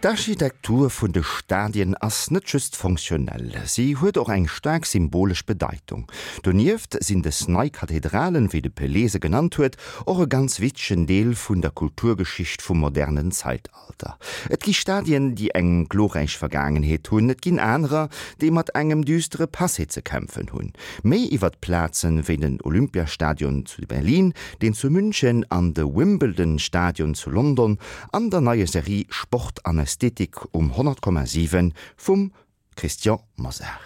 D'Architektur vun de Stadien ass net just fonctionnel, si huet och eng staark symbolesch Bedeitung. Donieft sinn des nei Kathedralen, wéi de Pelé se genannt huet, och e ganz wichtegen Deel vun der Kulturgeschicht vum modernen Zeitalter. Et gi Stadien, déi eng glorräich Vergaangenheet hunn, et ginn anerer, déi mat engem düstere Passé ze kämpfen hunn. Méi iwwert Plazen wéi den Olympiastadion zu Berlin, deen zu München an de Wimbledon Stadion zu London an der neier Serie Sport an Ästhetik um 100,7 vum Christian Mosar.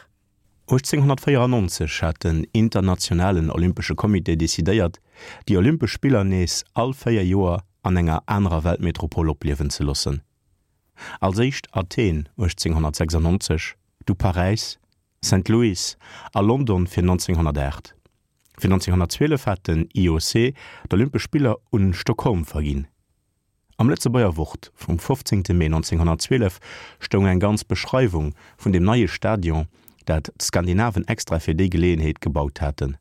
1894 hat den Internationalen Olympesche Comité decidéiert, déi Olympesch Spiller nees all 4 Joer an enger anerer Weltmetropol opliewen ze loossen. Als éischt Athen 1896, du Paräis, Saint Louis a London fir 1908. Fir 1912 hat den IOC d'Olympesch Spiller un Stockholm verginn. Am Lëtzebuerger Wort vum 15. Mee 1912 stoung eng ganz Beschreiwung vun dem neie Stadion, dat d'Skandinaven extra fir déi Geleeënheet gebaut haten.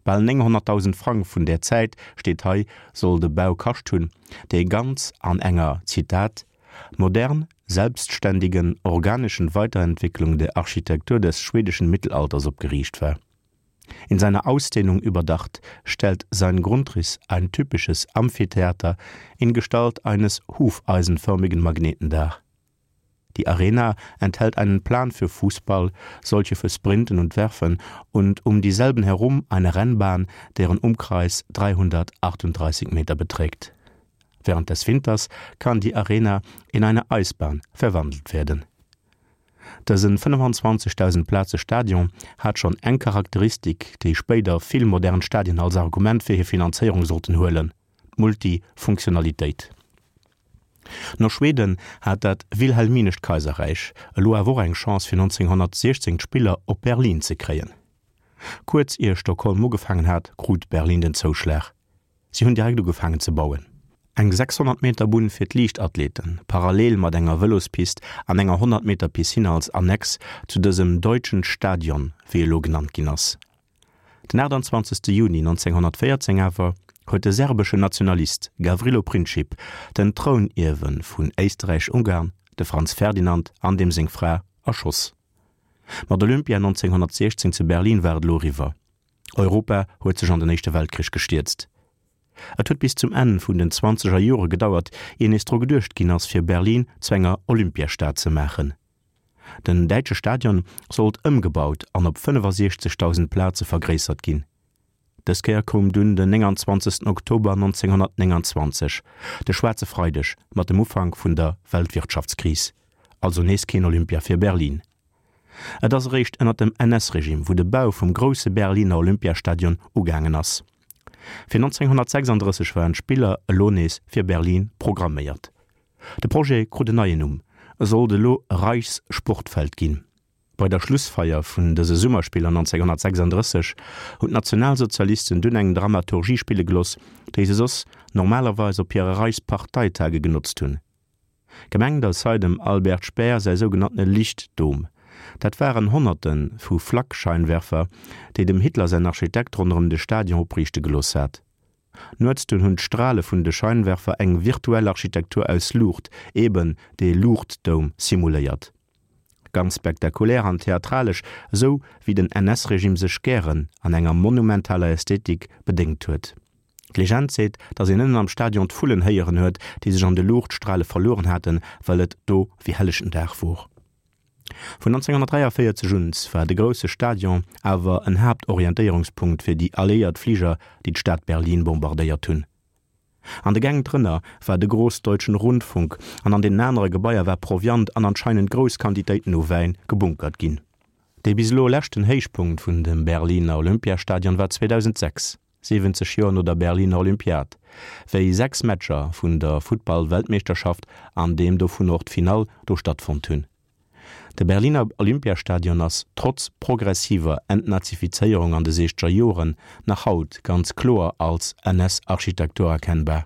Bal 900.000 Frang vun där Zäit, steet hei, soll de Bau kascht hunn, dee ganz an enger, Zitat, modern selbstständigen organischen Weiterentwicklung der Architektur des schwedischen Mittelalters opgeriicht war. In seiner Ausdehnung überdacht stellt sein Grundriss ein typisches Amphitheater in Gestalt eines hufeisenförmigen Magneten dar. Die Arena enthält einen Plan für Fußball, solche für Sprinten und Werfen und um dieselben herum eine Rennbahn, deren Umkreis 338 Meter beträgt. Während des Winters kann die Arena in eine Eisbahn verwandelt werden. Dësen 25.000 Plaze Stadion hat schonn eng Charakteristik, déi spéider vill modern Stadien als Argument fir hir Finanzéierung sollten huelen, d'Multifunktionalitéit. No Schweden hat dat Wilhelminescht Kaiserräich elo awer och eng Chance fir 1916 d'Spiller op Berlin ze kréien. Kuerz ier Stockholm ugefaangen hat, krut Berlin den Zouschlag. Si hunn direkt ugefaangen ze bauen. Eng 600 Meter Bunn fir d'Liichtathleten, parallel mat enger Vëlospist an enger 100 Meter Piscine als Annex zu dësem Deutschen Stadion, wéi e lo genannt ginn ass. Den 28. Juni 1914 awer huet de serbeschen Nationalist Gavrilo Princip den Trounierwe vun Éisterräich-Ungarn, de Franz Ferdinand, an deem seng Fra erschoss. Mat Olympia 1916 zu Berlin war et elo eriwwer. Europa huet sech an den Éischte Weltkrich gestierzt. Et huet bis zum Enn vun den zwanzeger Jore gedauert, ier nees dru geduecht ginn ass, fir Berlin zu enger Olympiastad ze maachen. Den däitsche Stadion sollt ëmgebaut an op 65.000 Plaze vergréissert ginn. Dës Kéier koum dunn den 29. Oktober 1929, de schwaarze Freideg mat dem Ufank vun der Weltwirtschaftskris. Also nees keen Olympia fir Berlin. Et ass eréischt ënner dem NS-Regime, wou de Bau vum grousse Berliner Olympiastadion ugaangen ass. Fir 1936 waren d'Spiller elo nees fir Berlin programméiert. De Projet krut en neien Numm, e sollt elo Reichssportfeld ginn. Bei der Schlussfeier vun dëse Summerspiller 1936 hunn d'Nationalsozialisten dunn eng Dramaturgie spille geloss, déi se soss normalerweis op hire Reichsparteitage genotzt hunn. Gemengt ass hei dem Albert Speer säi sougenanntene Lichtdom. Dat waren Honnerte vu Flakscheinwerfer, déi dem Hitler säin Architekt ronderëm de Stadion opriichte gelooss hat. Nuets dunn hunn d'Strale vun de Scheinwerfer eng virtuell Architektur aus Luucht, eben dee Luuchtdoum, simuléiert. Ganz spektakulär an theatralesch, esou wéi den NS-Regime sech gären an enger monumentaler Ästhetik bedéngt huet. D'Legend seet, datt een ënnen am Stadion d'Vullen héieren huet, déi sech an de Luuchtstrale verlueren haten, well et do wéi hellechten Dag wor. Vun 1943 un war de grousse Stadion awer en Haaptorientéierungspunkt fir déi alliéiert Fliger, déi d'Stad Berlin bombardéiert hunn. An de Gäng drënner war de Großdeutschen Rundfunk an an deenen anere Gebaier war Proviant an anscheinend grouss Quantitéiten u Wäin gebunkert ginn. Dee bis elo leschten Héichpunkt vun dem Berliner Olympiastadion war 2006. 70 Joer no der Berliner Olympiad, wéi 6 Matcher vun der Futtball-Weltmeeschterschaft an deem dovun och d'Finall do stattfonnt hunn. De Berliner Olympiastadion ass trotz progressiver Entnazifizéierung an de siechzeger Joren nach haut ganz kloer als NS-Architektur erkennbar.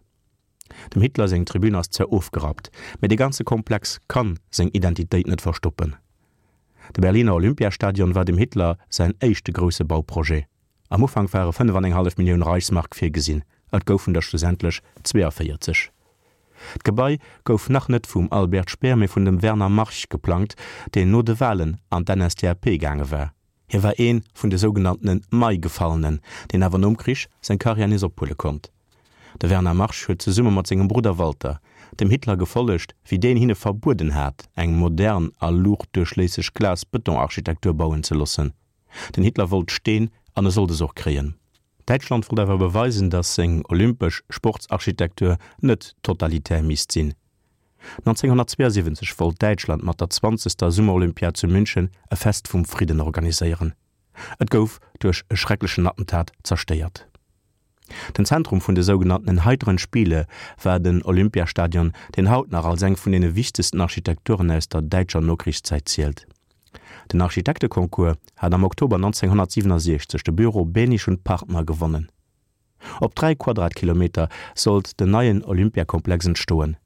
Dem Hitler seng Tribün ass zwar ofgerappt, mee de ganze Komplex kann seng Identitéit net verstoppen. De Berliner Olympiastadion war dem Hitler säin éischte grousse Bauprojet. Am Ufank ware 5 an eng hallef Millioun Reichsmark virgesinn, et goufen der schlussendlech 42. D'Gebai gouf nach net vum Albert Speer, mee vun dem Werner March geplangt, deen no de Walen an d'NSDAP gaange war. Hie war ee vun de sougenanntene Mai-Gefallenen, deen awer nom Krich seng Karriär nees ophuele konnt. De Werner March huet zesumme mat sengem Brudder Walter dem Hitler gefollegt, wéi deen hinne verbueden hat, eng modern a luuchtduerchléisseg Glas-Bëton-Architektur bauen ze loossen. Den Hitler wollt Steen an e sollt es och kréien. Däitschland wollt awer beweisen, datt seng olympesch Sportsarchitektur net totalitär misst sinn. 1972 wollt Däitschland mat der zwanzegster Summerolympiad zu München e Fest vum Fridden organiséieren. Et gouf duerch e schrecklechen Attentat zerstéiert. Den Zentrum vun de sougenanntenen Heiteren Spiele war den Olympiastadion, deen haut nach als eng vun deene wichtegsten Architekturen aus der däitscher Nokrichszäit zielt. Den Architekteconcours hat am Oktober 1967 de Büro Behnisch und Partner gewonnen. Op 3 Quadratkilometer sollt den neien Olympiakomplex entstoen.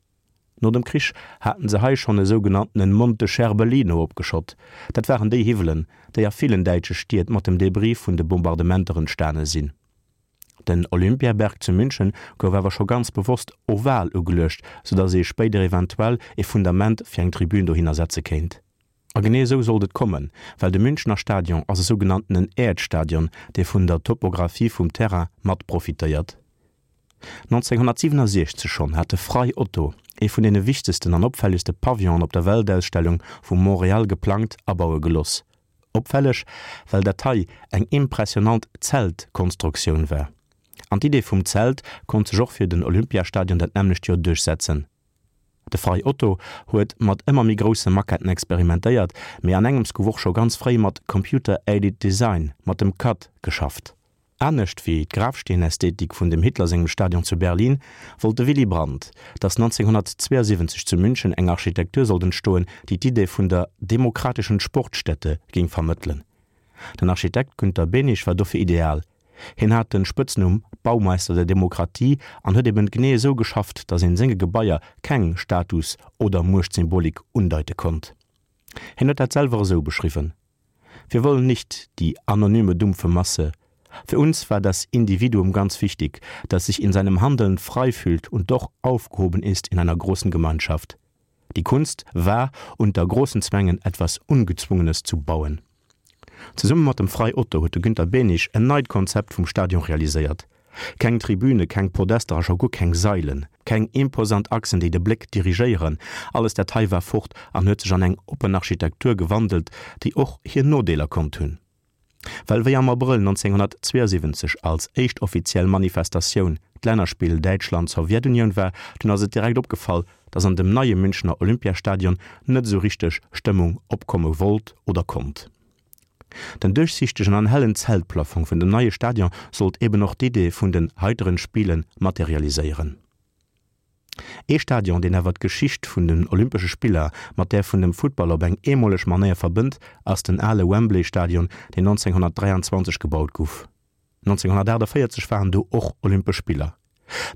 No dem Krich haten se hei schonn e sougenanntenen Monte Scherbelino opgeschott. Dat waren déi Hiwwelen, déi a villen däitsche Stied mat dem Debris vun de Bombardementer entstane sinn. Den Olympiaberg zu München gouf awer scho ganz bewosst oval ugeluecht, soudatt ee spéider eventuell e Fundament fir eng Tribün dohinner setze kéint. A genee esou sollt et kommen, well de Münchener Stadion ass e sougenanntenen Äerdstadion, dee vun der Topographie vum Terrain mat profitéiert. 1967 schonn hat de Frei Otto ee vun deene wichtegsten an opfällegste Pavillonen op der Weltausstellung vu Montréal geplangt a baue geloss. Opfälleg, well dat hei eng impressionant Zeltkonstruktioun war. An d'Idee vum Zelt konnt sech och fir den Olympiastadion dat nämmlecht Joer duerchsetzen. De Frei Otto huet mat ëmmer méi grousse Maquetten experimentéiert, mee an engems gouf och scho ganz fréi mat Computer Aided Design, mat dem CAD, geschafft. Anescht wéi d'Grafsteenästhetik vun dem Hitler sengem Stadion zu Berlin, wollt de Willy Brandt, datt 1972 zu München eng Architektur sollt entstoen, déi d'Idee vun der demokratischen Sportstätte géing vermëttelen. Den Architekt Günter Behnisch war dofir ideal, Hien hat den Spëtznumm Baumeister der Demokratie an huet eben genee esou geschafft, datt een senge Gebaier keng Status oder Muechtsymbolik undeite konnt. Hien huet dat selwer esou beschriwwen, Wir wollen nicht die anonyme dumpfe Masse. Für uns war das Individuum ganz wichtig, das sich in seinem Handeln frei fühlt und doch aufgehoben ist in einer großen Gemeinschaft. Die Kunst war, unter großen Zwängen etwas Ungezwungenes zu bauen. Zesumme mat dem Frei Otto huet de Günter Behnisch en neit Konzept vum Stadion realiséiert. Keng Tribüne, keng Podester a scho guer keng Sailen, keng imposant Achsen, déi de Bléck dirigéieren, alles dat hei war fort an huet sech an eng oppen Architektur gewandelt, déi och hir Nodeeler konnt hunn. Well wéi am Abrëll 1972 als éischt offiziell Manifestatioun d'Lännerspill Däitschland-Sowjetunioun war, dunn ass et direkt opgefall, datt an dem neie Münchener Olympiastadion net esou richteg Stëmmung opkomme wollt oder konnt. Den duerchsichtegen an hellen Zeltplafong vun dem neie Stadion sollt eben och d'Idee vun den heiteren Spiele materialiséieren. Ee Stadion, deen awer d'Geschicht vun den Olympesche Spiller mat där vun dem Futtball op eng eemoleg Manéier verbënnt, ass den ale Wembley Stadion, deen 1923 gebaut guff. 1948 waren do och Olympesch Spiller.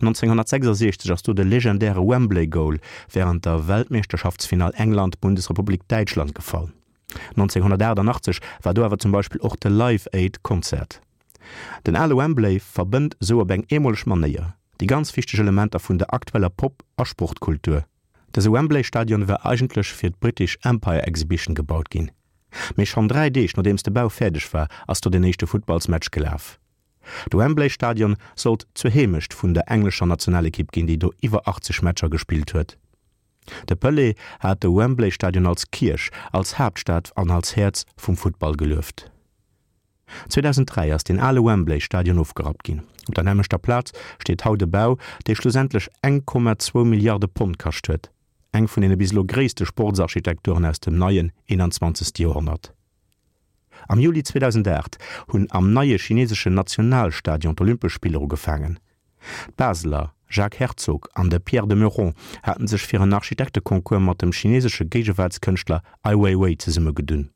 1966 ass do de legendäre Wembley Goal wärend der Weltmeeschterschaftsfinall England-Bundesrepublik Däitschland gefall. 1988 war do awer zum Beispill och de Live Aid Concert. Den ale Wembley verbënnt esou op eng eemoleg Manéier déi ganz wichteg Elementer vun der aktueller Pop a Sportkultur. Dëse Wembley Stadion war eigentlech fir d'British Empire Exhibition gebaut ginn. Mee schonn 3 Deeg nodeems de Bau fäerdeg war, ass do den éischte Futtballsmatch gelaf. De Wembley Stadion sollt zur Heemecht vun der englescher Nationalekipp ginn, déi do iwwer 80 Matcher gespillt huet. De Pelé hat de Wembley Stadion als Kierch, als Haaptstad an als Häerz vum Futtball gelueft. 2003 ass deen ale Wembley Stadion ofgerappt ginn. Op der nämmlechter Plaz steet haut e Bau, dee schlussendlech 1,2 Milliarde Pond kascht huet. Eng vun deene bis elo gréisste Sportsarchitekturen aus dem neien 21. Joerhonnert. Am Juli 2008 hunn am neie chineseschen Nationalstadion d'Olympesch Spiller ugefaangen. D'Baseler Jacques Herzog an de Pierre de Meuron haten sech fir en Architekteconcours mat dem chinesesche Géigewaartskënschtler Ai Weiwei zesummegedunn.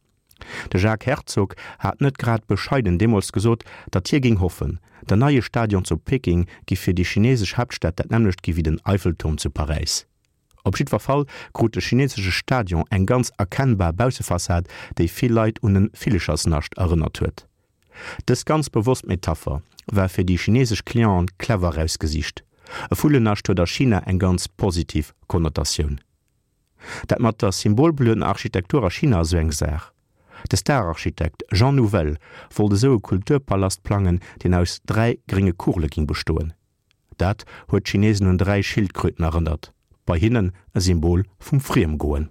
De Jacques Herzog hat net grad bescheiden deemools gesot, datt hie géing hoffen, den neie Stadion zu Peking giff fir déi chinesesch Haaptstad dat nämmlecht gi wéi den Eiffelturm zu Paräis. Op jiddwer Fall krut de chinesesche Stadion eng ganz erkennbar Baussefassad, déi vill Leit un e Villechersnascht erënnert huet. Dës ganz bewosst Metapher war fir déi chinesesch Clienten clever erausgesicht. E Vullennascht huet a China eng ganz positiv Konnotatioun. Dat mat der symbolbeluedener Architektur a China ass esou eng Saach. De Star-Architekt Jean Nouvel wollt esou e Kulturpalast plangen, deen aus 3 grénge Kugele ging bestoen. Dat huet d'Chinesen un 3 Schildkröten erënnert, bei hinnen e Symbol vum Friemgoen.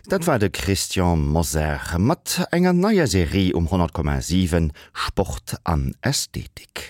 Dat war de Christian Mosar mat enger neier Serie um 100,7 Sport an Ästhetik.